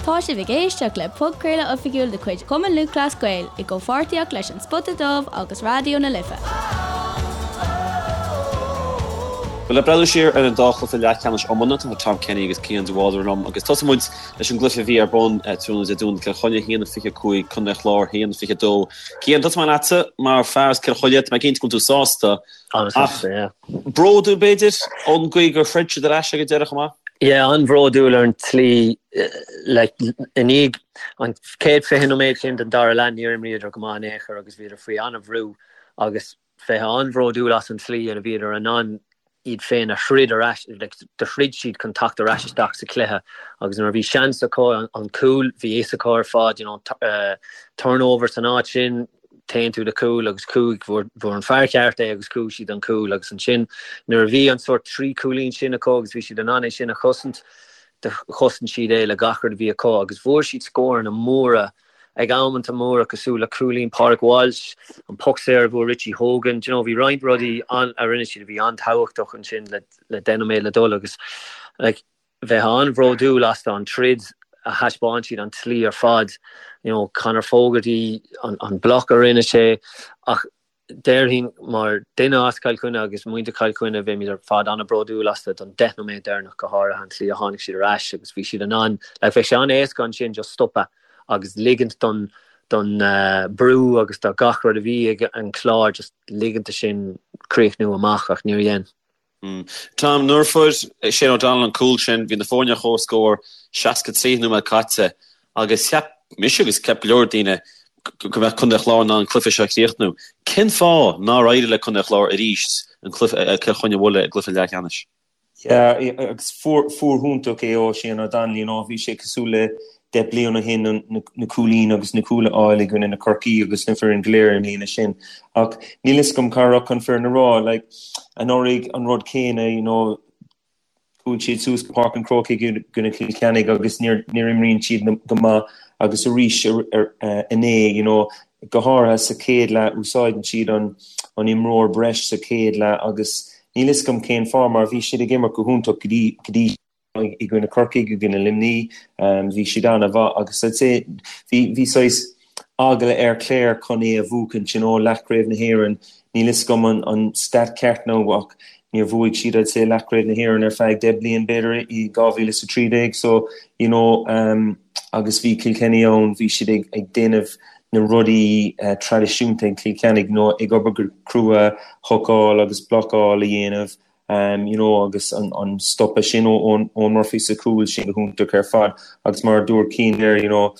Tá sibh ag éisteacht le podchraoladh oifigiúil de chuid Chumann Lúthchleas Gael i gcomhpháirtíocht leis An Spota Dubh agus Raidió na Life. Bhuel, le breathnú siar ar an dá chluiche leathcheannais iomána, tá Tom Kenny agus Cian de Bhaldraithe liom agus tosóidh muid leis an gcluiche a bhí ar bun tráthnóna Dé Domhnaigh, Cill Chainnigh 1-25, Contae an Chláir 1-22. Cian, tosóidh mé leatsa mar fear as Cill Chainnigh, tá mé cinnte go bhfuil tú sásta ach bródúil b'fhéidir ón gcaoi gur throid siad ar ais ag an deireadh chomh maith? Yeah, an-bhródúil ar an tslí like i ndiaidh an chéad 20 nóiméad sin den dara leath níor imríodar go maith in aon chor agus bhíodar faoi an-bhrú agus bheith an-bhródúil as an tslí ina bhíodar in ann iad féin a throid ar ais, like do throid siad chun teacht ar ais isteach sa chluiche agus nuair a bhí seans acu an cúl bhí fhios acu ar fad you know turnover san áit sin téann tú do chúl agus chuaigh, fuair an fear ceart é agus chuaigh siad don chúl agus ansin nuair a bhí an sórt 3 chúilín sin acu agus bhí siad in ann é sin a chosaint, do chosain siad é le gach rud a bhí acu agus bhfuair siad scóranna móra ag amanta móra cosúil le cúilín Pádraig Walsh, an poc saor a bhfuair Richie Hogan, do you know bhí roinnt rudaí a rinne siad a bhí an-tábhachtach ansin le le 10 nóiméad le dul agus like bheith an-bhródúil astu an troid a thaispeáin siad, an tslí ar fad, you know, Conor Fogarty, an, an bloc a rinne sé, ach déarfainn mar duine as Cill Chainnigh agus muintir Chill Chainnigh, bheimid ar fad an-bhródúil astu don 10 nóiméad deireanach go háirithe, an tslí a tháinig siad ar ais agus bhí siad in ann, like, bheadh sé an-éasca ansin just stopadh agus ligint don, don brú agus do gach rud a bhí ag an Chlár just ligint do sin críochnú amach ach níor dhein. Tom, nuair a fuair Shane O'Donnell an cúl sin, bhí na foirne ar comhscór, 63 nóiméad caite agus cheap mise agus cheap go leor daoine go mbeadh Contae an Chláir in ann an cluiche seo a chríochnú. Cén fáth nár éirigh le Contae an Chláir arís an cluiche, Cill Chainnigh a bhualadh i gcluiche leathcheannais? Yeah, agus fuair hiontach é ó Shane O'Donnell, you know, bhí sé cosúil le 10 bliain ó shin na cúilín agus na cúil a fháil i gcoinne na Corcaí agus na foireann go léir i mbliana sin. Ach níl fhios agam cá raibh an foireann a rá, like, anuraidh an rud céanna, you know, chuaigh siad suas go Páirc an Chrócaigh i gcoinne Chill Chainnigh agus níor níor imríonn siad go maith agus arís inné, you know, go háirithe sa chéad leath úsáideann siad an an imreoir breis sa chéad leath agus níl fhios agam cén fáth mar bhí siad ag imirt go hiontach go dtí go dtí i gcoinne Corcaigh, i gcoinne Luimní, bhí siad an-mhaith agus I'd say bhí bhí saghas eagla ar Clare chun é a bhuachaint, you know, leathchraobh na hÉireann, níl fhios agam an an stat ceart now ach níor bhuaigh siad I'd say leathchraobh na hÉireann ar feadh 10 bliain b'fhéidir i 2013 so you know um, agus bhí Kilkenny ann, bhí siad ag ag déanamh na rudaí uh, traidisiúnta ag Cill Chainnigh, you know, ag obair go crua, hocáil agus blocáil a dhéanamh you know agus an an stopadh sin ó Eoin Murphy sa chúl sin go hiontach ar fad agus mar a dúirt Cian there you know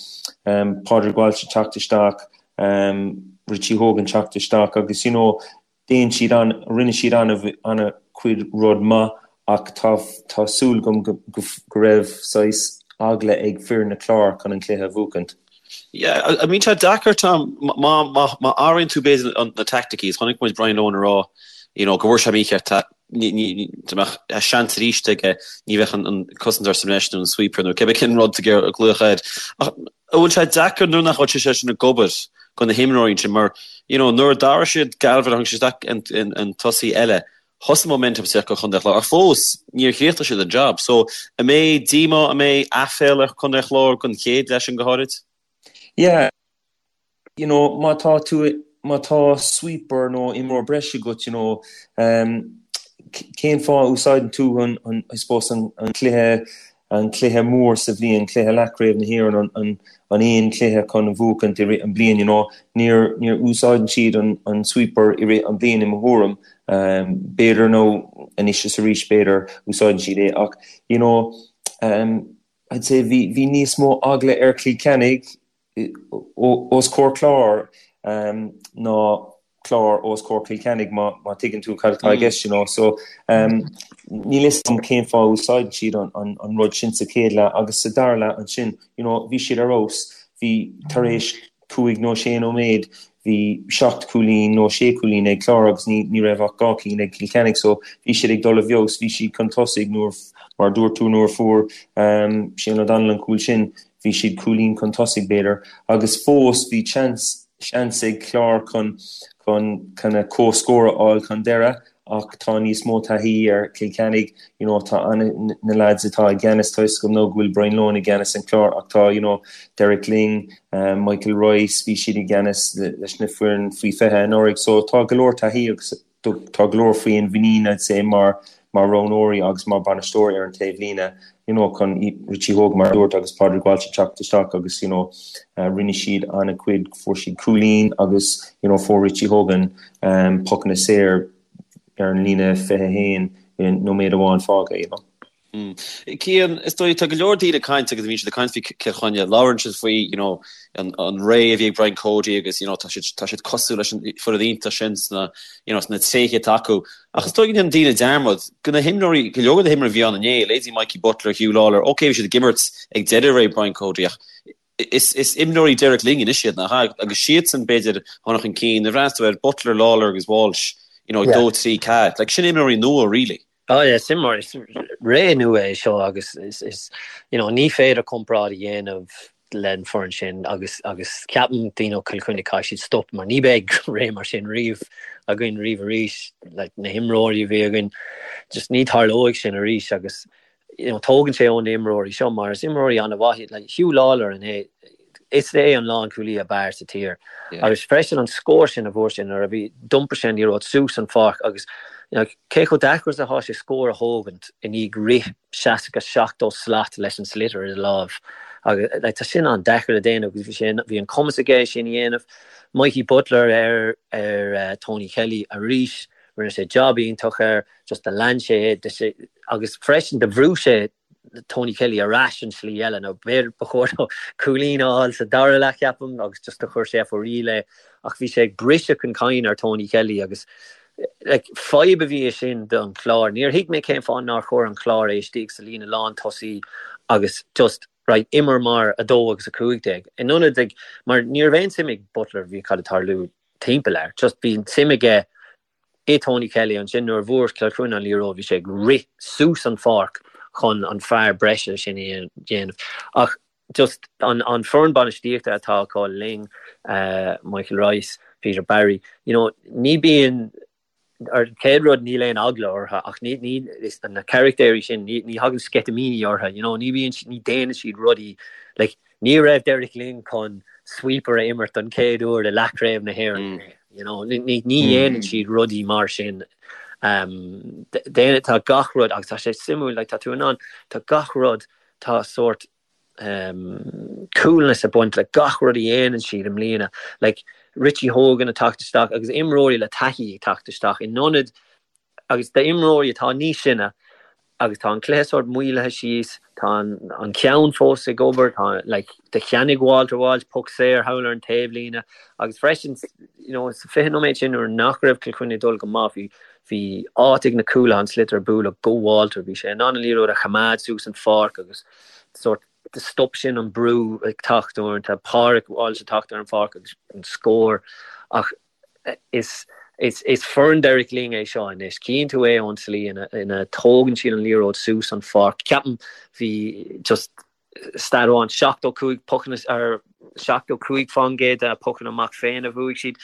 um, Pádraig Walsh ag teacht isteach um, Richie Hogan teacht isteach agus you know déan siad an rinne siad an an chuid rud maith ach tá tá súil agam go, go, go raibh saghas eagla ag foireann na Clár chun an cluiche a bhuachaint. Yeah, an mbíonn sé deacair Tom, má má athraíonn tú b'fhéidir na taicticí, chonaic muid Brian Lohan ag rá you know go bhfuair sé mícheart dá mbeadh seans arís aige ní bheadh an cosantóir sa mbreis nó an sweeper nó cibé cén rud a glaodh air. Ach an bhfuil sé deacair nuair nach bhfuil sé sin ag obair do na himreoirí sin mar you know nuair a d'athraigh siad Galvin a tháinig sé isteach an tosaí eile thosaigh momentum isteach do Chontae an Chláir ach fós níor chríochnaigh siad an job. So an mbeidh díomá, an mbeidh aiféala ar Chontae an Chláir don chéad leath sin go háirid? Yeah, you know, má tá tú, má tá sweeper nó imreoir breise agat, you know, um, cén fáth a úsáideann tú an, an, I suppose, an, an cluiche an cluiche mór sa bhliain, cluiche leathchraobh na hÉireann, an, an, an aon cluiche chun a bhuachaint i rith an bliain, you know. Níor, níor úsáideann siad an, an sweeper i rith an bliain i mo thuairim. Um, b'fhéidir nó anois is arís b'fhéidir úsáideann siad é ach, you know, um, I'd say bhí, bhí níos mó eagla ar Chill Chainnigh os comhair Clár ná Clár os comhair Chill Chainnigh má má tuigeann tú cad atá i gceist you know so níl fhios agam cén fáth a úsáideann siad an an an rud sin sa chéad leath agus sa dara leath ansin you know bhí siad ar fheabhas bhí tar éis cúig nó sé nóiméad bhí seacht cúilín nó sé cúilín ag Clár agus ní ní raibh ach dhá cinn ag Cill Chainnigh so bhí siad ag dul i bhfeabhas, bhí siad chun tosaigh nuair mar dúirt tú nuair a fuair Shane O'Donnell an cúl sin bhí siad cúilín chun tosaigh b'fhéidir agus fós bhí chance seans ag Clár chun chun kind of comhscór a fháil chun deireadh. Ach tá níos mó taithí ar Chill Chainnigh, you know, tá ana, na lads atá i gceannas, tá 'fhios agam now go bhfuil Brian Lohan i gceannas an Chláir ach tá, you know, Derek Lyng, Michael Rice, bhí siad i gceannas leis na foireann faoi 20 anuraidh so tá go leor taithí agus tá go leor féinmhuinín I'd say mar mar roghnóirí agus mar bainisteoirí ar an taobhlíne, you know, chun Richie Hogan mar a dúirt agus Pádraig Walsh a teacht isteach agus, you know, rinne siad an-chuid, fuair siad cúilín agus, you know, fuair Richie Hogan pocanna saor ar an líne 21 i nóiméad amháin fágtha, you know. Cian, is dóigh, tá go leor daoine ag caint agus bíonn siad ag caint faoi Cill Chainnigh, labhrann siad faoi, you know, an, an ré a bhí ag Brian Cody agus, you know, tá siad, tá siad cosúil leis an foireann iontach sin sna, you know, sna tréithe atá acu. Ach is dóigh go ndéanann daoine dearmad go na himreoirí, go leor de na himreoirí a bhí ann inné, leithéidí Mikey Butler, Huw Lawlor, ok bhí siad ag imirt ag deireadh ré Brian Cody ach is, is imreoirí Derek Lyng anois iad, nach ea? Agus siadsan b'fhéidir a tháinig chun cinn, nuair a bhreathnaíonn tú ar Butler, Lawlor agus Walsh, you know, 2, 3, 4, like sin imreoirí nua really. Oh yeah, is imreoirí, is ré nua é seo agus is, is, you know, ní féidir comparáid a dhéanamh len foireann sin agus, agus ceapaim daoine ó Chill Chainnigh caithfidh siad stop mar ní beidh ré mar sin riamh againn riamh arís, like na himreoirí a bhí againn, just ní tarlóidh sin arís agus, you know, tógann sé ó na imreoirí seo mar is imreoirí an-mhaith iad, like Huw Lawlor inné, is é an lánchúlaí ab fhearr sa tír. Agus freisin an scór sin a fuair sé nuair a bhí, d'iompair sé an liathróid suas an pháirc agus you know, cé chomh deacair is atá sé scór a thógaint i ndiaidh rith 60, 70 slat leis an sliotar i do láimh. Agus like, tá sin an-deacair le déanamh agus bhí sé, bhí an cumas aige é sin a dhéanamh. Mikey Butler ar, ar uh, Tony Kelly arís, rinne sé job iontach air, just do lean sé é, agus freisin do bhrú sé Tony Kelly ar ais an slí eile nó b'fhéidir ba chóir dó cúilín a fháil sa dara leath ceapaim agus just do chuir sé for real é ach bhí sé ag briseadh an cinn ar Tony Kelly agus like, fadhb a bhí i sin don Chlár. Níor thuig mé cén fáth nár chuir an Clár é istigh sa líne lán tosaí agus just right, imir mar 2 agus 15. In ionad ag mar ní raibh aon suim ag Butler bhí cad ag tarlú timpeall air. Just bhí suim aige i Tony Kelly ansin nuair a bhfuair Cill Chainnigh an liathróid bhí sé ag rith suas an pháirc chun an fear breise sin a dhéanamh. Ach just an an foireann bainistíochta atá acu Lyng, Michael Rice, Peter Barry, you know, ní bíonn ar chéad rud níl aon eagla orthu ach ní ní is na carachtéirí sin ní ní thagann sceitimíní orthu, you know, ní bhíonn ní déanann siad rudaí like Ní raibh Derek Lyng chun sweeper a imirt don chéad uair i leathchraobh na hÉireann. You know, ní dhéanann siad rudaí mar sin. Tá gach rud, agus tá sé suimiúil, like, tá tú in ann, tá gach rud, tá sórt coolness ag baint le gach rud a dhéanann siad i mbliana. Like, Richie Hogan ag teacht isteach agus imreoirí le taithí ag teacht isteach in ionad agus d'imreoirí atá níos sine agus tá an cluiche sórt maolaithe síos, tá an ceann fós ag obair, tá like do cheannaigh Walter Walsh poc saor thall ar an taobhlíne agus freisin you know sa 20 nóiméad sin nuair nach raibh Cill Chainnigh ag dul go maith bhí bhí áit ag na cúlaithe an sliotar a bualadh go Walter, bhí sé in ann an liathróid a choimeád suas an pháirc agus sórt do stop sin an brú ag teacht uaireanta, Pádraig Walsh ag teacht ar an pháirc agus an scór ach Is foireann Derek Lyng é seo anois. Chíonn tú é ón tslí ina dtógann siad an liathróid suas an pháirc. Ceapaim bhí just stat amháin, 75 pocanna ar 75% de pocanna amach féin a bhuaigh siad.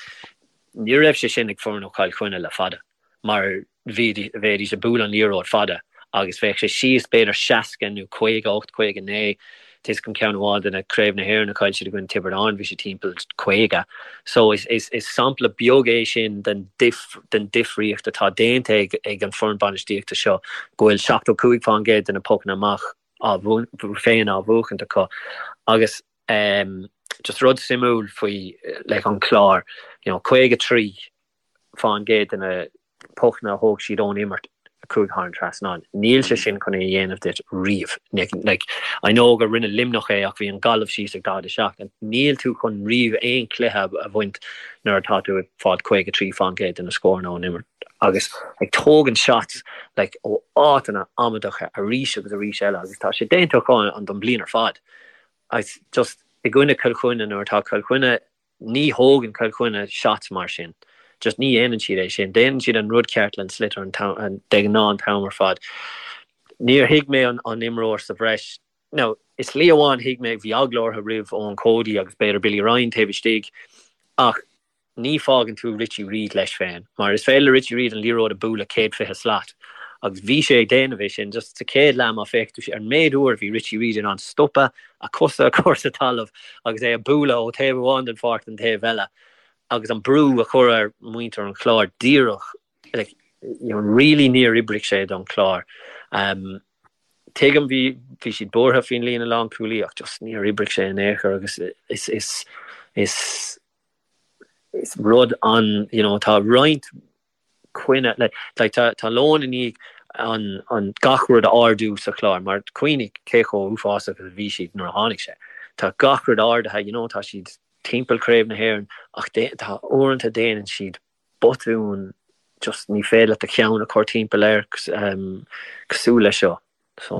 Ní raibh sé sin ag foireann ó Chill Chainnigh le fada. mar bheidís ag bualadh an liathróid fada agus bheadh sé síos b'fhéidir 60 nó 58, 59, tá 'fhios agam ceann amháin de na Craobh na hÉireann a chaill siad i gcoinne Tiobraid Árann bhí sé timpeall 50. So is is is sampla beag é sin den den difríocht atá déanta ag ag an foireann bainistíochta seo go bhfuil 75% de na pocanna amach á féin á bhuachaint acu agus um, just rud suimiúil faoi like, an Clár you know, 53 fán gcéad de na pocanna a thóg siad ón imirt a chuaigh thar an trasnán. Níl sé sin chun é a dhéanamh duit riamh. Like, I know gur rinne Luimneach é ach bhí an Gaillimh síos ag 47. Níl tú chun riamh aon chluiche a bhaint nuair atá tú ag fáil 53 fán gcéad de na scóranna ón imirt agus ag tógaint shots like, ó áiteanna amaideacha arís agus arís eile agus tá sé déanta acu an don bliain ar fad. Agus just i gcoinne Cill Chainnigh nuair atá Cill Chainnigh Ní thógann Cill Chainnigh shots mar sin. Just ní dhéanann siad é sin. Déanann siad an rud ceart le an sliotar an t-am, de ghnáth an t-am ar fad. Níor thuig mé an an imreoir sa bhreis. Now, i slí amháin thuig mé, bhí eagla orthu roimh Eoin Cody agus b'fhéidir Billy Ryan taobh istigh ach. Ní fágann tú Richie Reid leis féin, mar is féidir le Richie Reid an liathróid a bualadh 120 slat agus bhí sé ag déanamh é sin just sa chéad leath má féach tú ar an méid uair a bhí Richie Reid in ann stopadh, a cosa a chur sa talamh agus é a bualadh ó taobh amháin den pháirc don taobh eile agus an brú a chur ar muintir an Chláir díreach like, you know, really níor oibrigh sé don Chlár. Um, tuigim bhí bhí siad buartha faoin líne lánchúlaí ach just níor oibrigh sé in aon chor agus is is is is rud an you know tá roinnt coinne like like tá tá Lohan i ndiaidh an an gach rud a ardú sa Chlár mar cuimhnigh cé chomh uafásach a bhí siad nuair a tháinig sé. Tá gach rud ardaithe you know tá siad timpeall Craobh na hÉireann ach tá uaireanta déanann siad botún just ní féidir leat do cheann a chur timpeall air cosúil leis seo. So.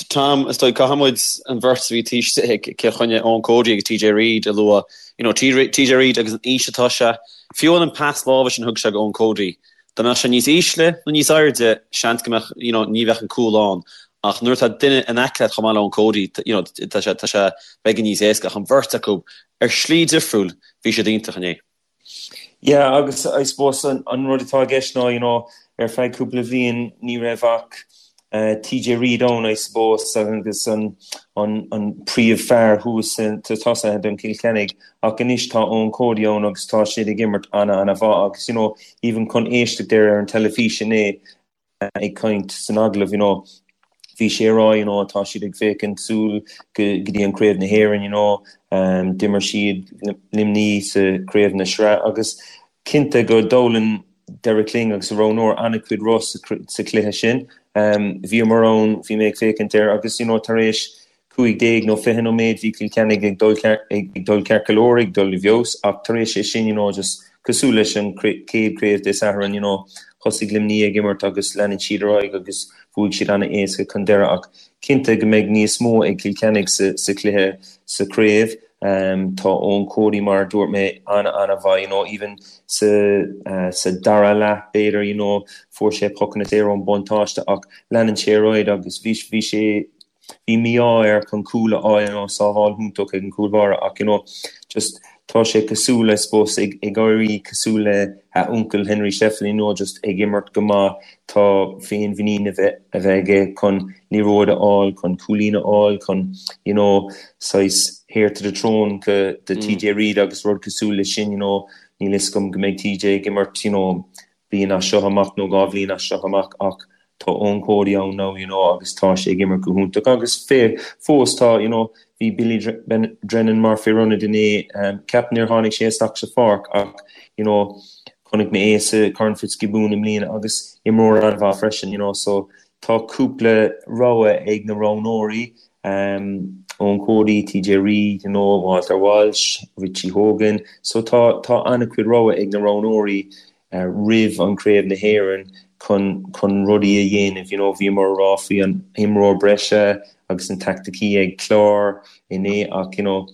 Tom, is dóigh caithfidh muid an bheirt a bhí taobh istigh ag Cill Chainnigh, Eoin Cody agus TJ Reid a lua. You know, TJ Reid agus an aois atá sé, fiú an pas láimhe sin a thug sé go Eoin Cody, dá mbeadh sé níos ísle nó níos airde, seans go mbeadh, you know, ní bheadh an cúl ann. Ach nuair atá duine in aice leat chomh maith le Eoin Cody, you know, tá sé, tá sé beagán níos éasca. Ach an bheirt acu, ar shlí difriúil, bhí siad iontach inné. Yeah agus I suppose an rud atá i gceist ná you know ar feadh cúpla bhliain ní raibh ach TJ Reid ann I suppose agus an an an príomh-fhear thuas sa tosaithe don Cill Chainnigh ach anois tá Eoin Cody ann agus tá siad ag imirt ana ana mhaith agus you know even chun éisteacht air ar an teilifís inné ag caint san agallamh, you know, bhí sé ag rá, you know, tá siad ag féachaint súil go dtí an Craobh na hÉireann, you know, d'imir siad Luimní sa Craobh na Sraith agus cinnte go d'fhoghlaim Derek Lyng agus a roghnóir an-chuid rud sa chluiche sin. Bhíomar ann, bhí mé ag féachaint air agus, you know, tar éis 15 nó 20 nóiméad bhí Cill Chainnigh ag dul ag dul ceart go leor, ag dul i bhfeabhas ach tar éis é sin you know just cosúil leis an chéad craobh Dé Sathairn you know thosaigh Luimní ag imirt agus leanann siad ar aghaidh agus bhuaigh siad an-éasca chun deireadh ach cinnte go mbeidh níos mó ag Cill Chainnigh sa sa chluiche sa chraobh. Um, tá Eoin Cody mar a dúirt mé an-an-mhaith you know even sa uh, sa dara leath b'fhéidir you know fuair sé pocanna saor ón buntáiste ach leanann sé ar aghaidh agus bhí bhí sé Bhí mí-ádh air chun cúl a fháil, you know, sábháil iontach ag an gcúl báire ach, you know, just tá sé cosúil, I suppose, ag ag éirí cosúil le a uncail Henry Shefflin, you know, just ag imirt go maith, tá féinmhuinín a bheith a bheith aige chun liathróid a fháil, chun cúilín a fháil, chun, you know, saghas heir to the throne go do TJ Reid agus rud cosúil le sin, you know, níl fhios agam go mbeidh TJ ag imirt, you know, bliain as seo amach nó 2 bhliain as seo amach ach tá Eoin Cody ann now you know agus tá sé ag imirt go hiontach agus fé fós tá you know bhí Billy Drennan mar fear ionaid inné ceapaim níor tháinig sé isteach sa pháirc ach you know chonaic mé é sa Corn Fitzgibbon i mbliana agus imreoir an-mhaith freisin you know so tá cúpla rogha ag na roghnóirí um, Eoin Cody, TJ Reid, you know, Walter Walsh, Richie Hogan so tá tá an-chuid rogha ag na roghnóirí roimh an Craobh na hÉireann chun chun rudaí a dhéanamh, you know, bhíomar ag rá faoi an imreoir breise agus na taicticí ag Clár inné ach, you know,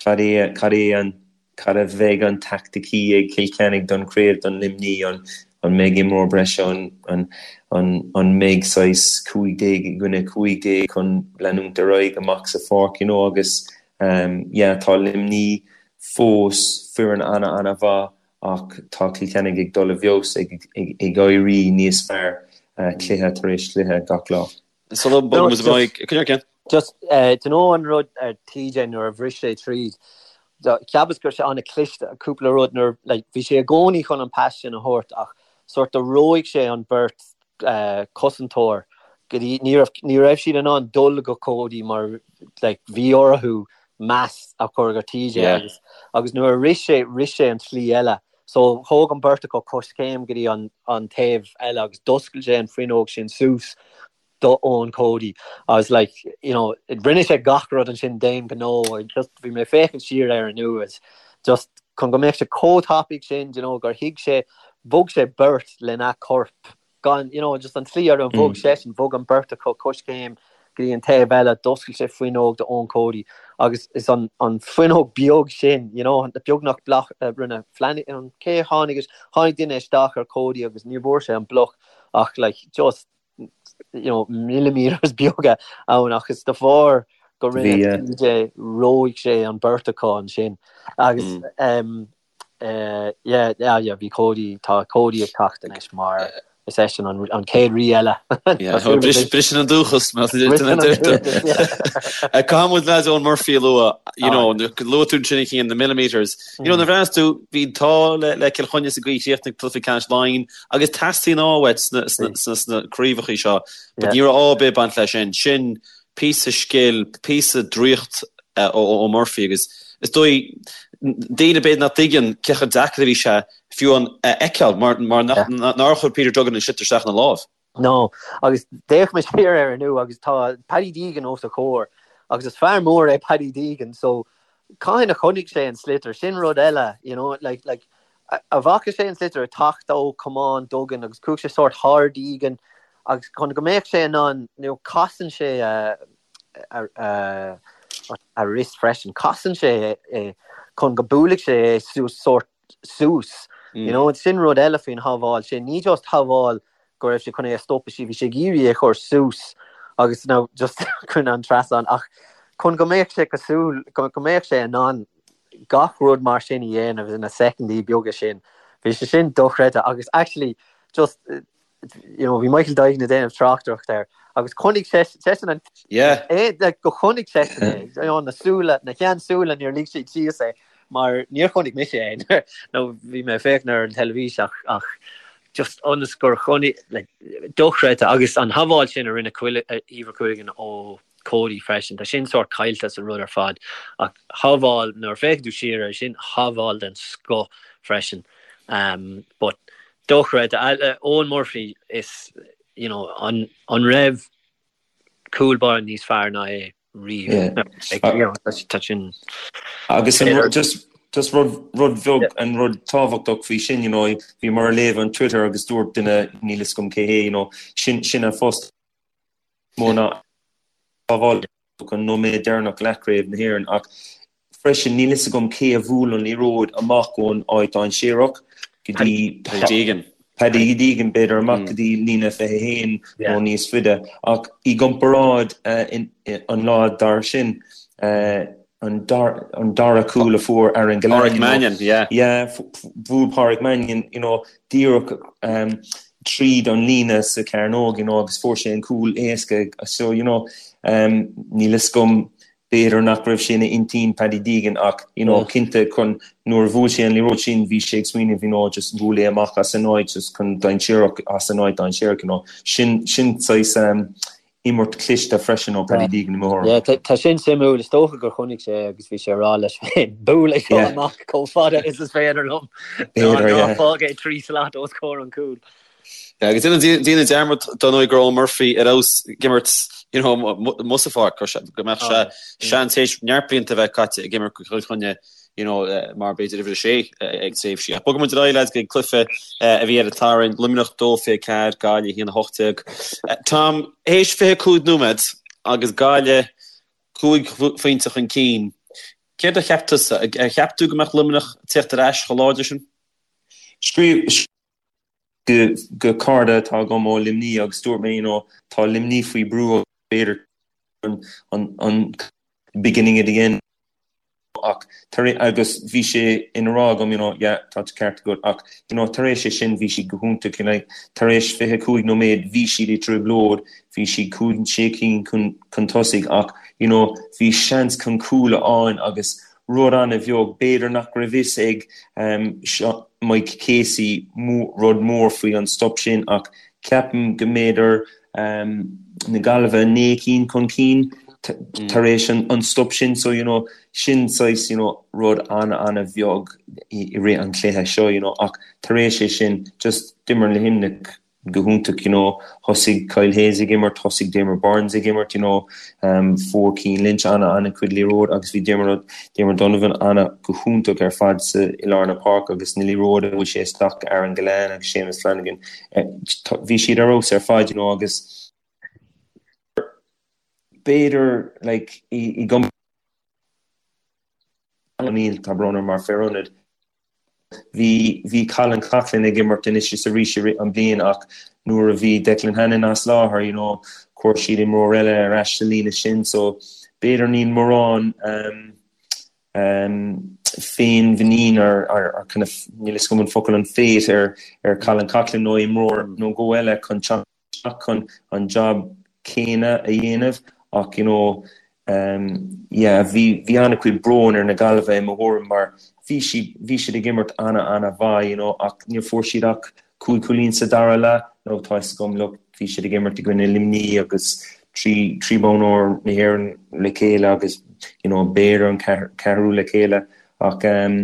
cad é cad é an cad a bheidh an taicticí ag Cill Chainnigh don chraobh don Luimní an an mbeidh imreoir breise an an an an mbeidh saghas 15 i gcoinne 15 chun leanúint ar aghaidh amach sa pháirc, you know, agus um yeah tá Luimní fós foireann ana ana mhaith Ach tá Cill Chainnigh ag dul i bhfeabhas, ag éirí níos fearr cluiche tar éis cluiche gach lá. Sula mbogann muid ar aghaidh, coinnigh ar ceann. Just, do you know an rud ar TJ nuair a bhris sé tríd, cheapas go raibh sé an-chliste, cúpla rud nuair, like, bhí sé i gcónaí chun an pas sin a thabhairt ach sort of reoigh sé an beirt cosantóir go dtí, ní raibh, ní raibh siad in ann dul go Cody mar like bhí orthu meas a chur ar TJ agus agus nuair a rith sé, rith sé an tslí eile. So thóg an beirt acu coiscéim go dtí an an taobh eile agus d'oscail sé an fuinneog sin suas do Eoin Cody agus like you know rinne sé gach rud ansin d'aon ghnó just bhí mé ag féachaint siar air inniu is just chun go mbeadh sé chomh tapaidh sin you know gur thuig sé bhog sé beirt lena chorp gan, you know, just an tslí ar bhog seisean, bhog an beirt acu coiscéim go dtí an taobh eile, d'oscail sé fuinneog do Eoin Cody agus is an an fuinneog beag sin, you know, beagnach bloc a rinne Flanagan, cé a tháinig, tháinig duine isteach ar Cody agus ní bhfuair sé an bloc ach like just, you know, millimeters beaga ann ach is de bharr. Go rinne TJ, reoigh sé an beirt acu ansin agus yeah, yeah, yeah, bhí Cody, tá Cody ag teacht anois mar is eisean an chéad rí eile. Briseann an dúchas, mar a deirtear. Caithfidh muid leaids Eoin Murphy a lua, you know, luaigh tú ansin a Chian, the millimetres. You know, nuair a bhreathnaíos tú, bhí an t-ádh le Cill Chainnigh sa gcaoi a chríochnaigh cluiche ceannais Laighean agus teastaíonn ádh uait sna craobhacha seo, but ní raibh ádh ar bith ag baint leis sin. Sin píosa scil, píosa draíocht ó Murphy agus is dóigh daoine b'fhéidir nach dtuigeann cé chomh deacair a bhí sé fiú an a fheiceáil mar mar nár chuir Peter Duggan an sliotar isteach ina lámh. No, agus d'fhéach mé siar air inniu agus tá Paddy Deegan os a chomhair agus is fear mór é Paddy Deegan so cathain a chonaic sé an sliotar, sin rud eile, you know, like, like, a bhfaca sé an sliotar ag teacht ó chamán Duggan agus chuaigh sé sórt thar Deegan agus chun go mbeadh sé in ann, you know, casann sé a, a, a, a wrist freisin, casann sé é chun go buailfidh sé é suas sórt suas, you know, sin rud eile faoin shábháil sin, ní just shábháil go raibh sé chun é a stopadh sí, bhí sé ag iarraidh é a chur suas agus now just chun an trasnán ach chun go mbeadh sé cosúil, go mbeadh sé in ann gach rud mar sin a dhéanamh ina soicindí beaga sin, bhí sé sin dochreidte agus actually just you know bhí Michael Duignan ag déanamh tráchtaireacht air agus chonaic seisean an Yeah. é like go chonaic seisean é you know na súile na sheansúile níor lig siad síos é mar níor chonaic mise é nó bhí mé ag féachaint ar an teilifís ach ach just ionas gur chonaic like dochreidte agus an shábháil sin a rinne Eibhear Quilligan ó Cody freisin. Tá sin sórt caillte sa rud ar fad ach shábháil, nuair a féachann tú siar air sin, shábháil den scoth freisin. But dochreidte. Eoin Murphy is, you know, an an raibh cúl báire níos fearr ná é riamh? Tá sin. Agus an just just rud rud bheag an rud tábhachtach faoi sin, you know, bhíomar ag léamh an Twitter agus dúirt duine níl fhios agam cé hé, you know, sin sin a phost mó ná sábháil an nóiméad deireanach leathchraobh na hÉireann ach freisin níl fhios agam cé a bhuail an liathróid amach ón áit dainséarach go dtí Paddy Deegan. Paddy Deegan b'fhéidir amach go dtí líne 21 nó níos faide ach i gcomparáid an lá dar sin an dara cúl a fuair Aaron Gillane. Pádraig Mannion, yeah. Yeah, bhuail Pádraig Mannion, you know, díreach tríd an líne sa chearnóg, you know, agus fuair sé an cúl éasca. So, you know, níl fhios agam, b'fhéidir nach raibh sé ina intinn Paddy Deegan ach, you know, cinnte chun nuair a bhuail sé an liathróid sin bhí sé ag smaoineamh, you know, just buail é amach as an áit, just chun dainséarach, as an áit dainséarach, you know. Sin, sin saghas, imirt chliste freisin ó Paddy Deegan i mo thuairim. Yeah, tá sin suimiúil. Is dócha gur chonaic sé agus bhí sé ag rá leis féin, buail é seo amach chomh fada is is féidir liom. Ná fág é 3 slat os comhair an chúil. Yeah, agus déanamh dearmad dar ndóigh go raibh Eoin Murphy ar fheabhas ag imirt you know, amuigh sa pháirc, go mbeadh sé seans théis neart blianta a bheith caite ag imirt do Chill Chainnigh you know, mar b'fhéidir uimhir a sé ag tréimhsí. Ach bogfaidh muid ar aghaidh lads go cluiche a bhí ar an Satharn, Luimneach 2 24, Gaillimh 1 18. Tom, théis 25 nóiméad agus Gaillimh 5 phointe chun cinn, céard a cheap tusa? Ar cheap tú go mbeadh Luimneach ag teacht ar ais chomh láidir sin? Scríobh go go cara atá agam ó Luimní agus dúirt mé, you know, tá Luimní faoi brú b'fhéidir an an beginning of the end. ach tar agus bhí sé ina rá agam you know yeah tá an ceart agat ach you know tar éis é sin bhí siad go hiontach you know tar éis 25 nóiméad bhí siad i dtrioblóid bhí siad cúig sé cinn chun chun tosaigh ach you know bhí seans chun cúl a fháil agus rud an-bheag b'fhéidir nach raibh fhios ag um, Mike Casey rud mór faoi an stop sin ach ceapaim go mb'fhéidir na Gaillimhe 9 cinn chun cinn tar éis an stop sin so you know sin saghas you know rud an-an-bheag i rith an chluiche seo you know ach tar éis é sin just d'imir Luimneach go hiontach you know thosaigh Kyle Hayes ag imirt thosaigh Diarmaid Byrnes ag imirt you know um, fuair Cian Lynch an-an-chuid liathróid agus bhí Diarmuid Diarmuid Donovan ana go hiontach ar fad sa i lár na páirce agus na liathróid a bhuail sé isteach Aaron Gillane agus Seamus Flanagan Bhí siad ar fheabhas ar fad, you know, agus b'fhéidir like i gcom O'Neill, tá brón orm, mar fear ionaid. Bhí bhí Colin Coughlan ag imirt anois is arís i rith an bliain ach nuair a bhí Declan Hannon as láthair, you know, chuir siad imreoir eile ar ais sa líne sin so. b'fhéidir níl mórán féinmhuinín ar kind of, níl a fhios agam an focal, an faith ar ar Colin Coughlan nó imreoir nó dhó eile chun teacht isteach chun an job céanna a dhéanamh ach you know yeah bhí bhí an-chuid bróin ar na Gaillimhe i mo thuairim mar bhí siad bhí siad ag imirt ana ana mhaith you know ach níor fuair siad ach 5 chúilín sa dara leath nó tá fhios agam look bhí siad ag imirt i gcoinne Luimní agus 3 3 bonn óir na hÉireann le chéile agus you know b'fhéidir an ceathrú le chéile ach um,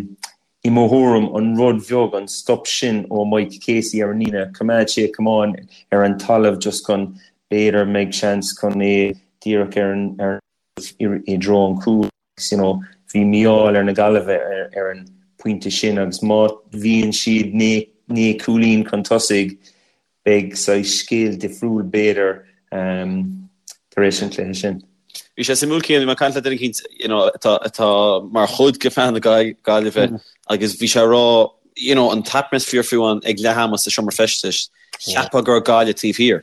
i mo thuairim an rud bheag an stop sin ó Mike Casey ar an líne coimeád sé camán ar an talamh just chun b'fhéidir mbeidh seans chun é díreach ar an ar i dtreo an chúil agus you know bhí mí-ádh ar na Gaillimhe ar, ar an pointe sin agus má bhíonn siad 9 cúilín chun tosaigh beidh saghas scéal difriúil b'fhéidir um, tar éis an chluiche sin. Bhí sé suimiúil Cian, bhí mé ag caint le duine eicínt you know, atá, atá mar chuid de phlean na Gaillimhe mm. agus bhí sé ag rá you know, an t-atmaisféar fiú amháin ag leath ama sa seomra feistis, cheapfá go raibh Gaillimh taobh thiar.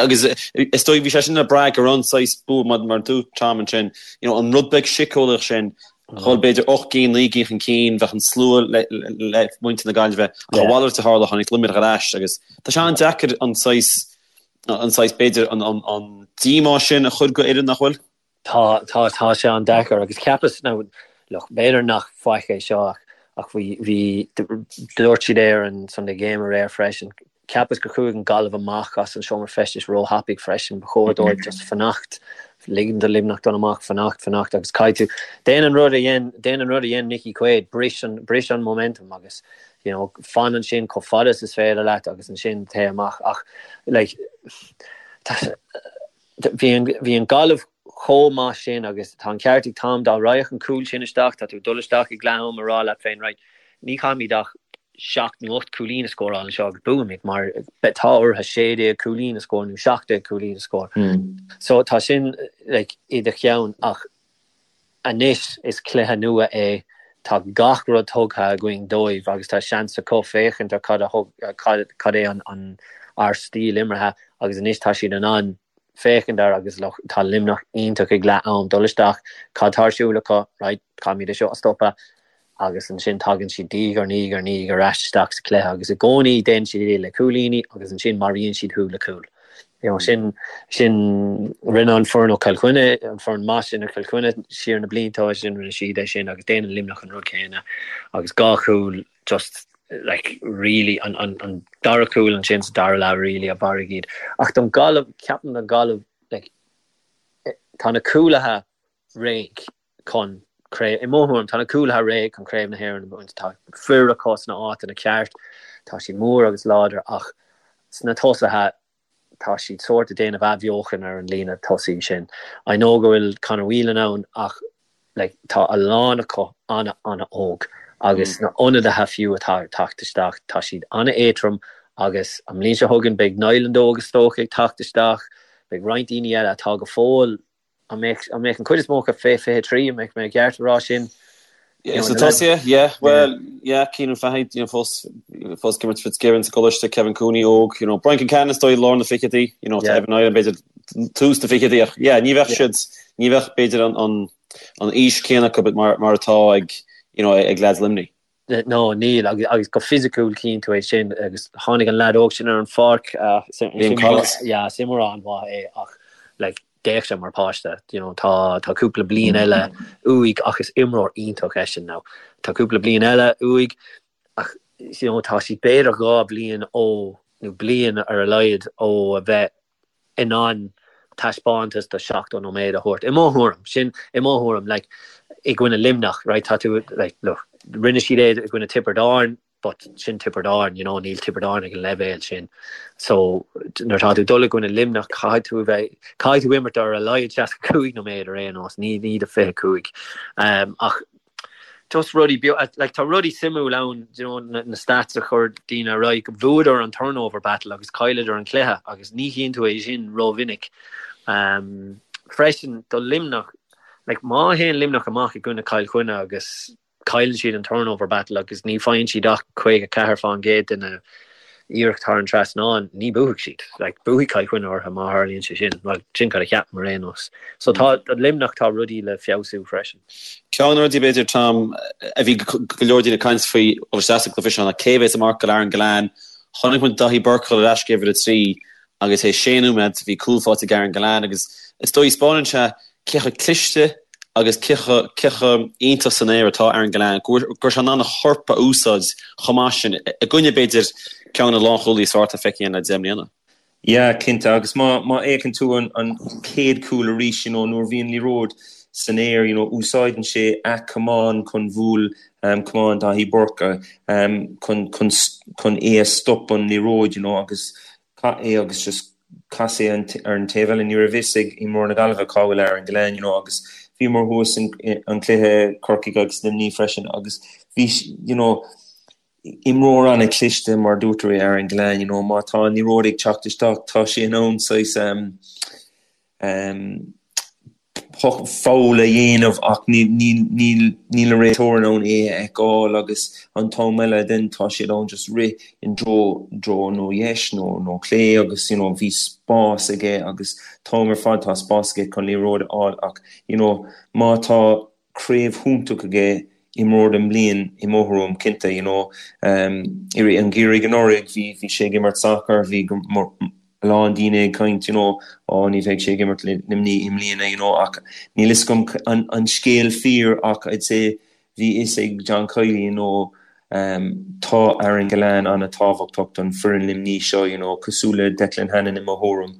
Agus is dóigh bhí sé sin ag brath go raibh an saghas bua mar mar dúirt Tom ansin, you know, an rud beag síceolaíoch sin, dhul b'fhéidir 8 gcinn, 9 gcinn chun cinn, bheadh an slua le, le muintir na Gaillimhe, ach a mhalairt a tharla, tháinig Luimneach ar ais agus tá sé an-deacair an saghas, an saghas b'fhéidir an, an, an díomá sin a chur go fhoireann nach bhfuil? Tá, tá, tá sé an-deacair agus cheapas, now, look, b'fhéidir nach faic é seo ach, ach bhí, bhí, dúirt siad é ar an Sunday Game aréir freisin, cheapas gur chuaigh an Gaillimh amach as an seomra feistis róthapaidh freisin, ba chóir dóibh just fanacht, ligean do Luimneach dul amach, fanacht, fanacht agus caithfidh tú, déan an rud a dhein, déan an rud a dhein Nicky Quaid, bris an, bris an momentum agus, you know, fan ansin chomh fada is is féidir leat agus ansin téigh amach ach, like, tá, Bhí an, bhí an Gaillimh chomh maith sin agus tá an ceart ag Tom, dá raghadh an cúl sin isteach, tá tú ag dul isteach ag leath am ag rá leat féin, right, ní chaithfimid ach seacht nó ocht cúilín a scóráil anseo agus buafaimid mar tá orthu 16 cúilín a scór nó 17 cúilín a scór. So tá sin like, i do cheann ach anois is cluiche nua é, tá gach rud tugtha againn dóibh agus tá seans acu féachaint ar cad a thug, cad é an, an, ár stíl imeartha agus anois tá siad in ann féachaint air agus look, tá Luimneach iontach ag leath am, dul isteach, cad tá ar siúl acu, right, caithfimid é seo a stopadh agus ansin tagann siad diaidh ar ndiaidh ar ndiaidh ar ais isteach sa chluiche agus i gcónaí déanann siad é le cúilíní agus ansin maraíonn siad thú le cúl. You know, sin, sin, rinne an foireann ó Chill Chainnigh, an foireann maith sin ó Chill Chainnigh siar na blianta ó sin, rinne siad é sin agus déanann Luimneach an rud céanna agus dhá chúl just like really an, an, an dara cúl ansin sa dara leath really a mharaigh iad. Ach don Ghaillimh, ceapaim don Ghaillimh, like, tá na cúlaithe réidh chun craobh, i mo thuairim, tá na cúlaithe réidh chun Craobh na hÉireann a bhaint. Tá fir acu sna áiteanna ceart, tá siad mór agus láidir ach sna tosaithe tá siad sórt ag déanamh athbheochan ar an líne tosaigh sin. I know go bhfuil Conor Whelan ann ach like tá a lán acu ana ana óg agus na ionadaithe fiú atá ag teacht isteach tá siad ana éadtrom agus an mbliain seo chugainn beidh Niland óg is dócha ag teacht isteach, beidh roinnt daoine eile atá go fóill An mbeadh an mbeadh an chuid is mó acu fé 23, an mbeadh mé ceart a rá sin? Yeah, so tosaithe, yeah, well, yeah, Cianan Fahy, you know, fós, fós ag imirt Fitzgibbon sa gcoláiste, Kevin Cooney óg, you know, Brian Concannon is dóigh i lár na fichidí, you know, tá Evan Niland b'fhéidir tús na fichidí ach, yeah, ní bheadh siad, ní bheadh b'fhéidir an, an, an aois céanna acu mar, mar atá ag, you know, ag lads Luimnigh. No, níl, agus go fisiciúil tchíonn tú é sin, agus tháinig an leaid óg sin ar an pháirc, Liam Collins. Yeah, is imreoir an-mhaith é ach like d'fhéach sé mar páiste, you know, tá tá cúpla bliain eile uaidh ach is imreoir iontach eisean now. Tá cúpla bliain eile uaidh ach you know, tá siad b'fhéidir dhá bhliain ó, nó bliain ar a laghad ó a bheith in ann taispeántas de 70 nóiméad a thabhairt. I mo thuairim, sin i mo thuairim, like, i gcoinne Luimneach, right, tá tú, like, look, rinne siad é i gcoinne Tiobraid Árann, but sin Tiobraid Árann, you know, níl Tiobraid Árann ag an leibhéal sin. So, nuair atá tú ag dul i gcoinne Luimneach, caithfidh tú a bheith, caithfidh tú imirt ar a laghad 65 nóiméad ar aon nós, ní, ní do 25. Um, ach just rudaí beaga, like tá rudaí suimiúil ann, you know, na, na stats a chuir daoine ar aghaidh, bhuadar an turnover battle agus chailleadar an cluiche agus ní chíonn tú é sin rómhinic. Um, freisin do Luimneach, like má théann Luimneach amach i gcoinne Chill Chainnigh agus cailleann siad an turnover battle agus ní faigheann siad ach 54 fán gcéad de na. Iarracht thar an trasnán, ní buafaidh siad. Like, buafaidh Cill Chainnigh orthu má tharlaíonn sé sin. Bhuel, sin cad a cheapaim ar aon nós. So tá, do Luimneach tá rudaí le feabhsú freisin. Ceann de na rudaí, b'fhéidir, Tom, a bhí go leor daoine ag caint faoi ó isteach sa gcluiche seo ná cé a bheas ag marcáil Aaron Gillane. Chonaic muid Daithí Burke dul ar ais go uimhir a 3 agus théis sé nóiméad bhí cúl faighte ag Aaron Gillane agus is dóigh 'spáineann sé cé chomh cliste agus cé chomh cé chomh iontach san aer atá Aaron Gillane, go raibh sé in ann a chorp a úsáid chomh maith sin i gcoinne, b'fhéidir, ceann de na lánchúlaithe is fearr atá feicthe againn le 10 mbliana. Yeah, cinnte, agus má má fhéachann tú an an chéad chúl arís, you know, nuair a bhí an liathróid san aer, you know, úsáideann sé a chamán chun bhuail um, camán Daithí Burke um, chun chun chun é a stop an liathróid, you know, agus chaith é agus just chas é ar an taobh eile. Ní raibh fhios ag imreoir na Gaillimhe cá bhfuil Aaron Gillane, you know, agus bhíomar thuas in an cluiche Corcaigh agus Luimní freisin agus bhí, you know, imreoir an-chliste mar dúirt tú é Aaron Gillane, you know, má tá an liathróid ag teacht isteach tá sé in ann saghas um, um, foul a dhéanamh ach níl an réiteoir in ann é a fheiceáil agus an t-am eile then tá siad ann just rith i dtreo dtreo nó dheis nó nó clé agus you know bhí spás aige agus t-am ar fad tá spás aige chun liathróid a fháil ach you know má tá craobh hiontach aige imreoir den mbliain i mo thuairim cinnte you know i rith an gheimhridh anuraidh bhí bhí sé ag imirt sacar bhí a lán daoine ag caint you know ó ní bheidh sé ag imirt le Luimnigh i mbliana you know ach níl fhios agam an an scéal fíor ach I'd say bhí fhios ag John Kiely you know Tá Aaron Gillane an-tábhachtach don foireann Luimní seo, you know, cosúil le Declan Hannon i mo thuairim,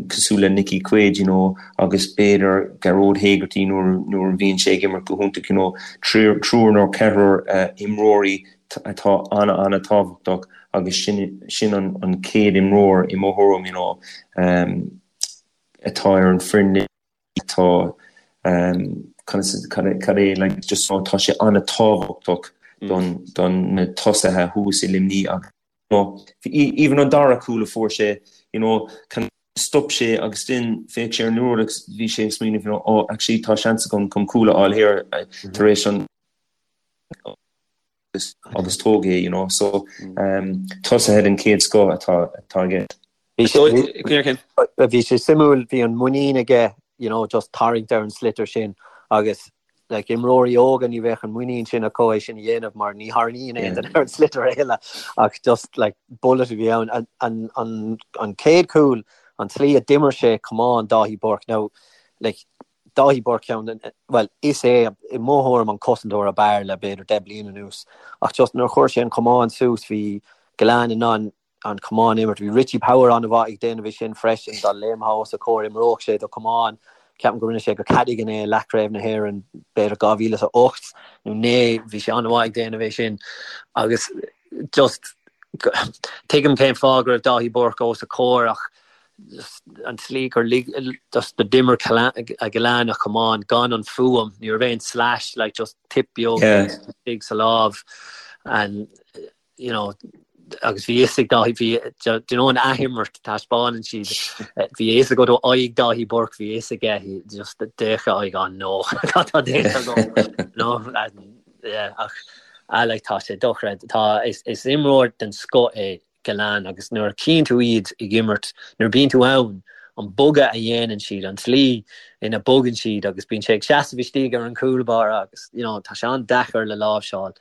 cosúil le Nickie Quaid, you know, agus b'fhéidir Gearóid Hegarty nuair nuair a bhíonn sé ag imirt go hiontach, you know, triúr nó ceathrar imreoirí atá an-an-tábhachtach agus sin sin an an chéad imreoir i mo thuairim, you know, atá ar an foireann. atá cad é like just tá sé an-tábhachtach don don na tosaithe thuas i Luimní agus you know even an dara cúl a fuair sé you know kind stop sé agus then féach sé ar an liathróid agus bhí sé ag smaoineamh you know oh actually tá seans agam chun cúl a fháil here tar éis an agus tóg é you know so tosaithe den chéad scoth atá atá aige. Bhí sé bhí sé suimiúil bhí an muinín aige you know just tarraingt ar an sliotar sin agus like imreoirí óga ní bheadh an muinín sin acu é sin a dhéanamh mar ní tharraingíonn aon duine ar an sliotar a thuilleadh ach just like bullet a bhí ann an an an an chéad chúl an tslí a d'imir sé camán Dáithí Burke now like Dáithí Burke ceann den, bhuel, is é i mo thuairim an cosantóir ab fhearr le b'fhéidir 10 bliain anuas. Ach just nuair a chuir sé an camán suas bhí Gillane in ann an camán a imirt. Bhí Richie Power an-mhaith ag déanamh é sin freisin, dá léimtheá os a chomhair imreodh sé do chamán. Ceapaim go rinne sé go Cadogan é i leathchraobh na hÉireann b'fhéidir 2008 nó 9, bhí sé an-mhaith ag déanamh é sin. Agus just tuigim cén fáth go raibh Dáithí Burke os a chomhair ach an tslí gur lig just d'imir Gillane a chamán gan an fuaim, ní raibh aon slash like just tip beag istigh sa lámh and you know agus bhí fhios ag Dáithí bhí do you know an athimirt taispeánann siad bhí fhios agat ó aghaidh Dáithí Burke bhí fhios aige just d'fhéach a aghaidh oh no cad tá déanta agam no yeah ach ah like tá sé dochreidte tá is is imreoir den scoth é Gillane agus nuair a chíonn tú iad ag imirt, nuair a bíonn tú ann, an bogadh a dhéanann siad, an tslí ina bogann siad agus bíonn sé ag seasamh istigh ar an chúl báire agus you know tá sé an-deacair le láimhseáil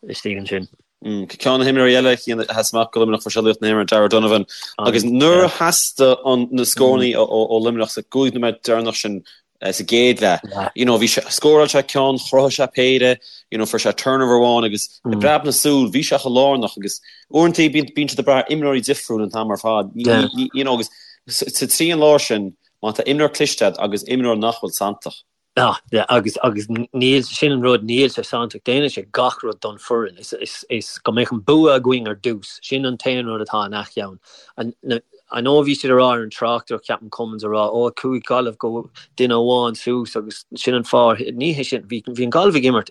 istigh ansin. Ceann de na himreoirí eile a sheas amach do Luimneach fuair sé laoch na himeartha, Darragh O'Donovan agus nuair a theastaigh na scórannaí ó Luimneach sa gcúig nóiméad deireanach sin sa gcéad leath. You know, bhí sé, scóráil sé ceann, chruthaigh sé péire, you know, fuair sé turnover amháin agus i bpreab na súl, bhí sé chomh lárnach agus uaireanta bíonn, bíonn siad ag brath ar imreoirí difriúil an t-am ar fad. Ní, ní, you know, agus sa trian láir sin, má tá imreoir cliste agat agus imreoir nach bhfuil santach. Ah, yeah, agus, agus níl, sin an rud, níl sé santach, déanann sé gach rud don foireann. Is, is, is go mbeadh an bua againn ar dtús, sin an t-aon rud atá ina cheann. An, na, I know bhí siad a rá ar an tráchtaireacht, ceapaim Cummins a rá, ó chuaigh Gaillimh go duine amháin suas agus sin an fáth, ní hé sin, bhí bhí an Gaillimh ag imirt,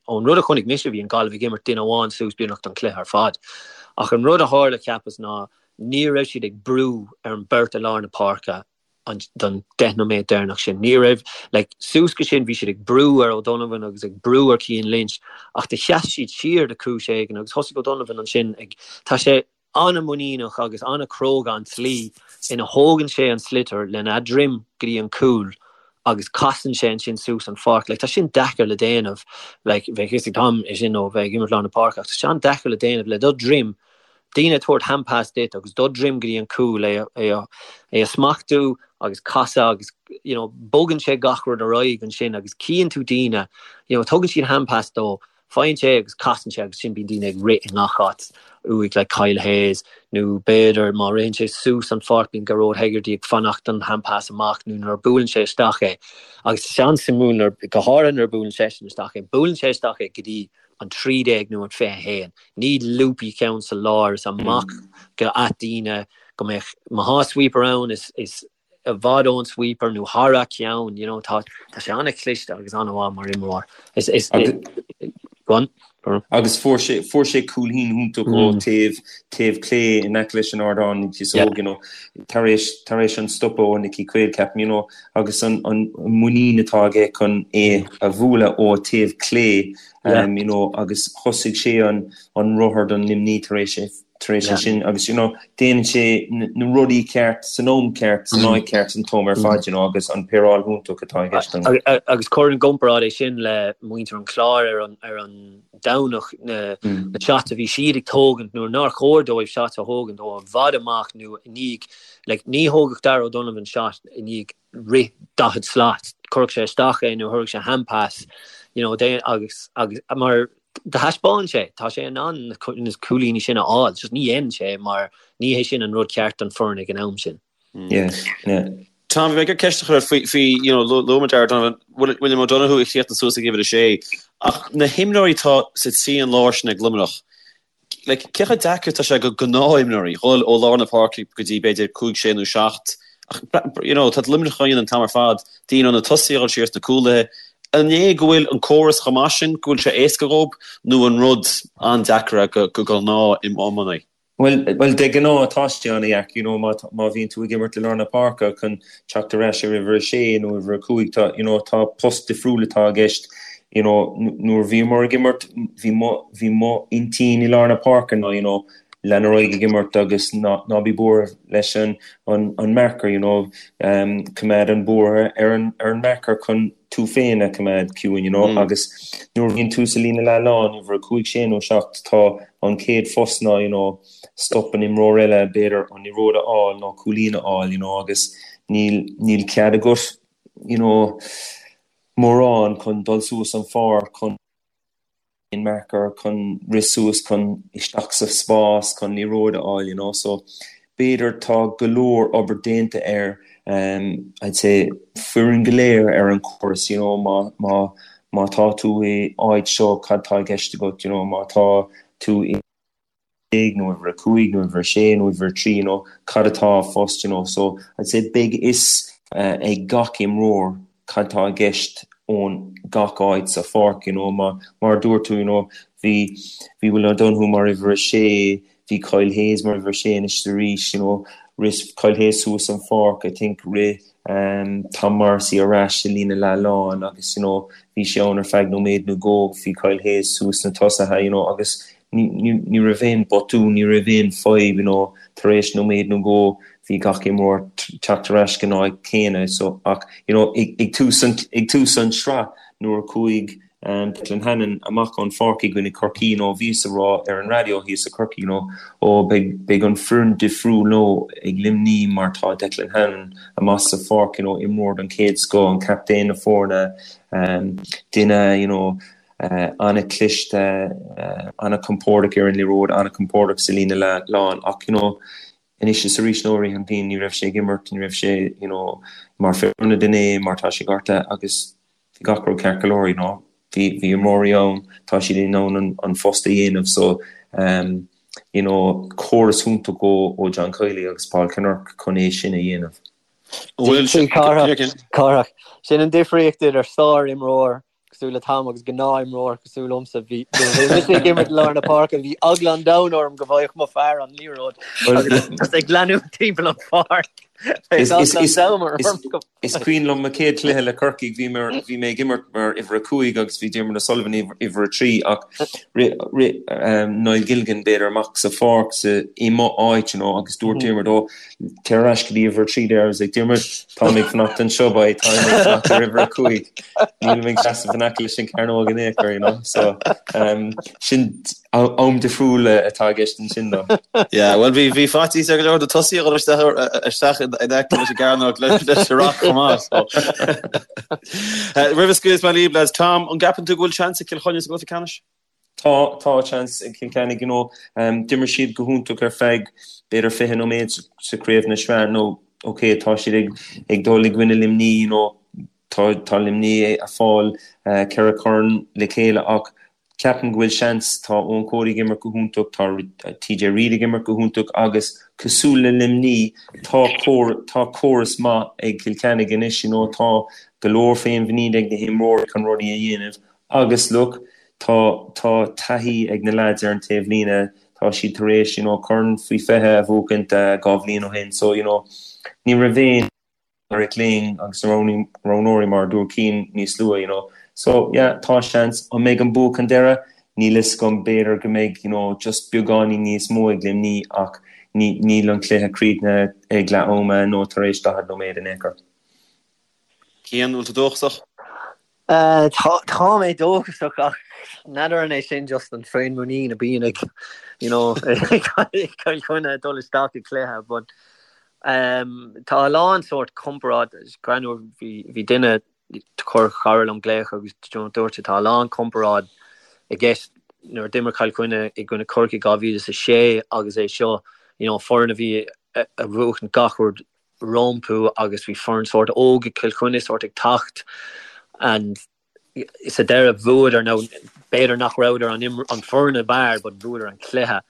ón rud a chonaic mise bhí an Gaillimh ag imirt duine amháin suas beagnach don chluiche ar fad. Ach an rud a tharla cheapas ná ní raibh siad ag brú ar an beirt i lár na páirce an don 10 nóiméad deireanach sin. Ní raibh, like, suas go sin bhí siad ag brú ar O'Donovan agus ag brú ar Cian Lynch ach do sheas siad siar de chúis éigin agus thosaigh O'Donovan ansin ag, tá sé. An-mhuiníneach agus an-chróga an tslí ina thógann sé an sliotar lena dhroim go dtí an cúl agus casann sé ansin suas an pháirc. Like, tá sin deacair le déanamh. Like, bheadh fhios ag Tom é sin ó bheith ag imirt lár na páirce ach tá sé an-deacair le déanamh le do dhroim, daoine ag tabhairt hand pass duit agus do dhroim go dtí an cúl, é é é a smachtú agus casadh agus you know, bogann sé gach rud ar aghaidh ansin agus cíonn tú daoine, you know, tugann siad hand pass dó Faigheann sé agus casann sé agus sin bíonn daoine ag rith i ngach áit uaidh like Kyle Hayes nó b'fhéidir má ritheann sé suas an pháirc bíonn Gearóid Hegarty ag fanacht don hand pass amach nó nuair a buaileann sé isteach é agus is an-suimiúil nuair go háirithe nuair a buaileann seisean isteach é buaileann sé isteach é go dtí an 13 nó an 21 ní loopy ceann sa lár is amach go at daoine go mbeadh má thá sweeper ann is is i bhfad ón sweeper nó thar a cheann, you know, tá tá sé an-chliste agus an-mhaith mar imreoir. Is is go on. Agus fuair sé fuair sé cúilín iontach ó taobh taobh clé in aice leis an ardán you know, tar éis tar éis an stopadh ó Nicky Quaid ceapaim, you know, agus an an muinín atá aige chun é a bhualadh ó taobh clé um, you know, agus thosaigh sé an an rothar don Luimní tar éis é tar éis é sin agus you know déanann sé na rudaí ceart san am ceart san áit ceart an t-am ar fad you know agus an péireáil iontach atá i gceist ann. Agus cuir i gcomparáid é sin le muintir an Chláir ar an ar an Domhnach na na shots a bhí siad ag tógaint nuair nár chóir dóibh shots a thógaint ó i bhfad amach nó i ndiaidh like ní thógfadh Darragh O'Donovan shot i ndiaidh rith 40 slat chuirfeadh sé isteach é nó chuirfeadh sé hand pass you know agus agus mar Do thaispeáin sé, tá sé in ann na cúilíní sin a fháil, just ní dhéanann sé mar ní hé sin an rud ceart don foireann ag an am sin. Yeah, yeah. Tom, bhí mé ag ceist a chur ort faoi, faoi, you know, luaigh muid Darragh O'Donovan, William O'Donoghue a chríochnaigh suas ag uimhir a sé, ach na himreoirí atá sa trian láir sin ag Luimneach, Like, cé chomh deacair atá sé do ghnáthimreoirí dhul ó lár na páirce go dtí b'fhéidir 5, 6 nó 7 ach you know, tá Luimneach á dhéanamh an t-am ar fad, daoine ó na tosaithe a dhul siar sna cúlaithe. An é go bhfuil an córas chomh maith sin go bhfuil sé éasca dhóibh nó an rud an-deacair é do ghnáth-iománaí? Bhuel, bhuel, de ghnáth tá sé an-dheacair, you know, má, má bhíonn tú ag imirt i lár na páirce chun teacht ar ais ar uimhir a sé nó uimhir a cúig, tá, you know, tá post difriúil atá i gceist. You know, nuair a bhíomar ag imirt, bhí mo, bhí mo intinn i lár na páirce ná, you know, lean ar aghaidh ag imirt agus ná, ná bí buartha leis an, an, an marker, you know, um, coimeád an buartha ar an, ar an marker chun tú féin a choimeád ciúin, you know, agus nuair a bhíonn tú sa líne leath-lán, uimhir a cúig, sé nó seacht, tá an chéad phost ná, you know, stop an imreoir eile, b'fhéidir an liathróid a fháil nó cúilín a fháil, you know, agus níl, níl cead agat, you know, mórán chun dul suas an pháirc, chun an marker, chun rith suas, chun isteach sa spás, chun liathróid a fháil, you know. So b'fhéidir tá go leor obair déanta ar um, I'd say foireann go léir ar an chóras, you know, má, má, má tá tú i áit seo cad tá i gceist agat, you know, má tá tú i nó uimhir a cúig nó uimhir a sé nó uimhir a trí you know cad atá phost you know so I'd say beidh fhios ag gach imreoir cad tá i gceist ón gach áit sa pháirc you know má mar a dúirt tú you know bhí bhí Will O'Donoghue mar uimhir a sé bhí Kyle Hayes mar uimhir a sé anois arís you know rith Kyle Hayes suas an pháirc I think rith um, Tom Morrissey ar ais i líne leath-lán agus you know bhí sé ann ar feadh nóiméad nó dhó bhí Kyle Hayes suas na tosaithe you know agus Ní raibh aon botún, ní raibh aon fadhb, you know, tar éis nóiméad nó dhó bhí gach imreoir teacht ar ais go n-áit céanna so ach you know ag tús an ag tús an sraith nuair a chuaigh um, Declan Hannon amach ón pháirc i gcoinne Corcaí you know, bhíos a rá ar an raidió thíos i Corcaigh you know, ó beidh beidh an foireann difriúil now ag Luimní mar tá Declan Hannon amach sa pháirc you know, imreoir den chéad scoth, an captaen na foirne um, duine you know, an-chliste, an-chompordach ar an liathróid, an-chompordach sa líne leath-lán ach you know anois is arís nó i rith an bhliain ní raibh sé ag imirt, ní raibh sé you know mar fear ionad inné mar tá sé gortaithe agus bhí gach rud ceart go leor you know bhí bhí imreoirí ann, tá siad in ann an an phost a dhéanamh so um you know córas iontach ó ó John Kiely agus Paul Kinnerk chun é sin a dhéanamh. Bhfuil sé Cárthach, sin an difríocht idir sár-imreoir cosúil le Tom agus gnáth-imreoir cosúil liomsa. Bhí nuair a bhí mise ag imirt i lár na páirce bhí eagla an domhain orm go bhfaigheadh mo fear an liathróid agus ag leanúint timpeall an pháirc. Is cuimhin liom mo chéad chluiche le Corcaigh, bhí bhí mé ag imirt mar uimhir 5 agus bhí Diarmuid O'Sullivan uimhir 3 ach rith Niall Gilligan b'fhéidir amach sa pháirc sa i mo áit you know agus dúirt Diarmuid ó téir ar ais go dtí uimhir 3 there I was like Diarmuid tá mé ag fanacht anseo boy tá mé ag fanacht ar uimhir 5 níl mé ag seasamh in aice leis an cearnóg in aon chor you know so um, sin Am difriúil atá i gceist ansin dó. Yeah, bhuel bhí bhí faitíos ar go leor de tosaithe a dhul isteach isteach in aice leis an gcearnóg leis an ruc chomh maith. So. Roimh a scaoilfeas mé libh, lads, Tom, an gceapann tú go bhfuil seans ag Cill Chainnigh sa gcluiche ceannais? Tá, tá seans ag Cill Chainnigh, you know. D'imir siad go hiontach ar feadh b'fhéidir 20 nóiméad sa chraobh na sraith nó ok, tá siad ag ag dul i gcoinne Luimní, you know, tá tá Luimní ag fáil ceithre chorn le chéile ach Ceapaim go bhfuil seans, tá Eoin Cody ag imirt go hiontach, tá TJ Reid ag imirt go hiontach agus cosúil le Luimní, tá tá córas maith ag Cill Chainnigh anois, you know, tá go leor féinmhuinín ag na himreoirí chun rudaí a dhéanamh agus look, tá tá taithí ag na lads ar an taobh líne, tá siad tar éis, you know, corn faoi 20 a bhuachaint 2 bhliain ó shin so, you know, ní raibh aon. Eric Lyng agus na roghnóirí mar a dúirt Cian níos luaithe you know. So yeah tá seans, an mbeidh an bua chun deireadh? Níl fhios agam, b'fhéidir go mbeidh you know just beagáinín níos mó ag Luimní ach ní níl an cluiche críochnaithe ag leath ama nó tar éis 40 nóiméad in aon chor. Cian, bhfuil tú dóchasach? Tá mé dóchasach ach n'fheadar an é sin just an féinmhuinín a bíonn ag you know ag Cill Chainnigh ag dul isteach i gcluiche but tá a lán sórt comparáid greannmhar bhí bhí duine chuir cara liom glaoch agus dúirt sé tá a lán comparáid i gceist nuair a d'imir Cill Chainnigh i gcoinne Corcaigh 2006 agus é seo you know foireann a bhí a bhuachan gach rud rompu agus bhí foireann sórt óg ag Cill Chainnigh sórt ag teacht and sa deireadh bhuadar nó b'fhéidir nach rabhadar an an foireann ab fhearr but bhuadar an cluiche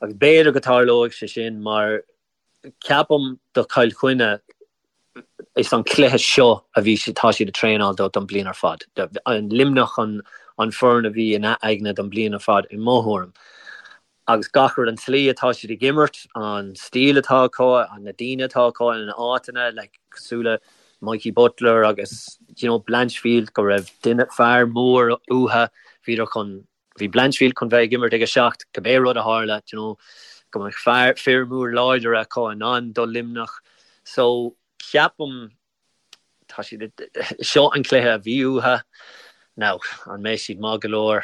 agus b'fhéidir go tarlóidh sé sin mar ceapaim do Chill Chainnigh is an cluiche seo a bhí tá siad ag traenáil do don bliain ar fad. An Luimneach an an foireann a bhí ina aigne don bliain ar fad i mo thuairim. Agus gach rud, an tslí atá siad ag imirt, an stíl atá acu, na daoine atá acu ina n-áiteanna, like, cosúil le Mikey Butler agus, you know, Blanchfield, go raibh duine, fear mór uathu, bhíodar chun, bhí Blanchfield chun bheith ag imirt ag a seacht, cibé rud a tharla, you know, go mbeadh fear, fir mór láidir acu in ann do Luimneach. So, ceapaim, tá siad, seo an cluiche a bhí uathu. Now, an mbeidh siad maith go leor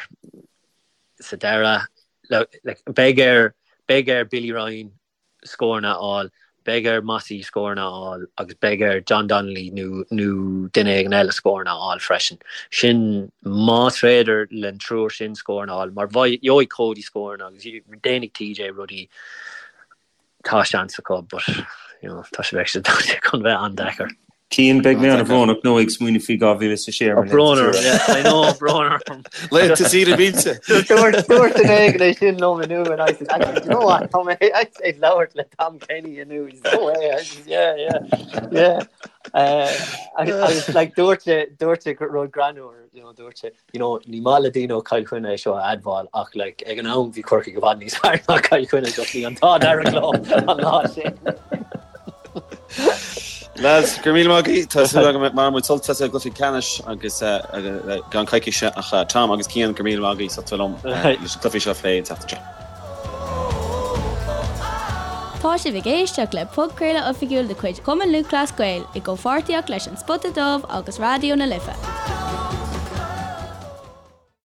sa deireadh? Like, beidh ar, beidh ar Billy Ryan scóranna a fháil, beidh ar Mossy scóranna a fháil agus beidh ar John Donnelly nó, nó duine éigin eile scóranna a fháil freisin. Sin, más féidir len triúr sin scóranna a fháil, mar gheobhaidh Cody scóranna agus déanfaidh TJ rudaí. Tá seans acu but you know tá sé bheidh sé chun bheith an-deacair. Cian, beidh mé an-bhrónach nó ag smaoineamh faoi 2006 ar mo Brón orm, yeah, I know, brón orm. Laethanta saoire millte. Dúirt dúirt duine éigin é sin liom inniu and I said, actually, do you know what, tá mé actually ag labhairt le Tom Kenny inniu. He said, no way. I said, yeah, yeah, yeah. Uh, agus like dúirt sé dúirt sé rud greannmhar, you know, dúirt sé, You know, ní maith le daoine ó Chill Chainnigh é seo a admháil ach like ag an am bhí Corcaigh i bhfad níos fearr ná Cill Chainnigh just bhí an t-ádh dearg leo an lá sin. Lads, go raibh míle maith agaibh. Tá súil agam go mbainfidh muid sult as an gcluiche ceannais agus i gceann coicíse ach Tom agus Cian, go raibh míle maith agaibh as ucht a bheith liom leis an gcluiche seo a phlé an tseachtain seo. Tá sibh ag éisteacht le podchraoladh oifigiúil de chuid Chumann Lúthchleas Gael i gcomhpháirtíocht leis An Spota Dubh agus Raidió na Life.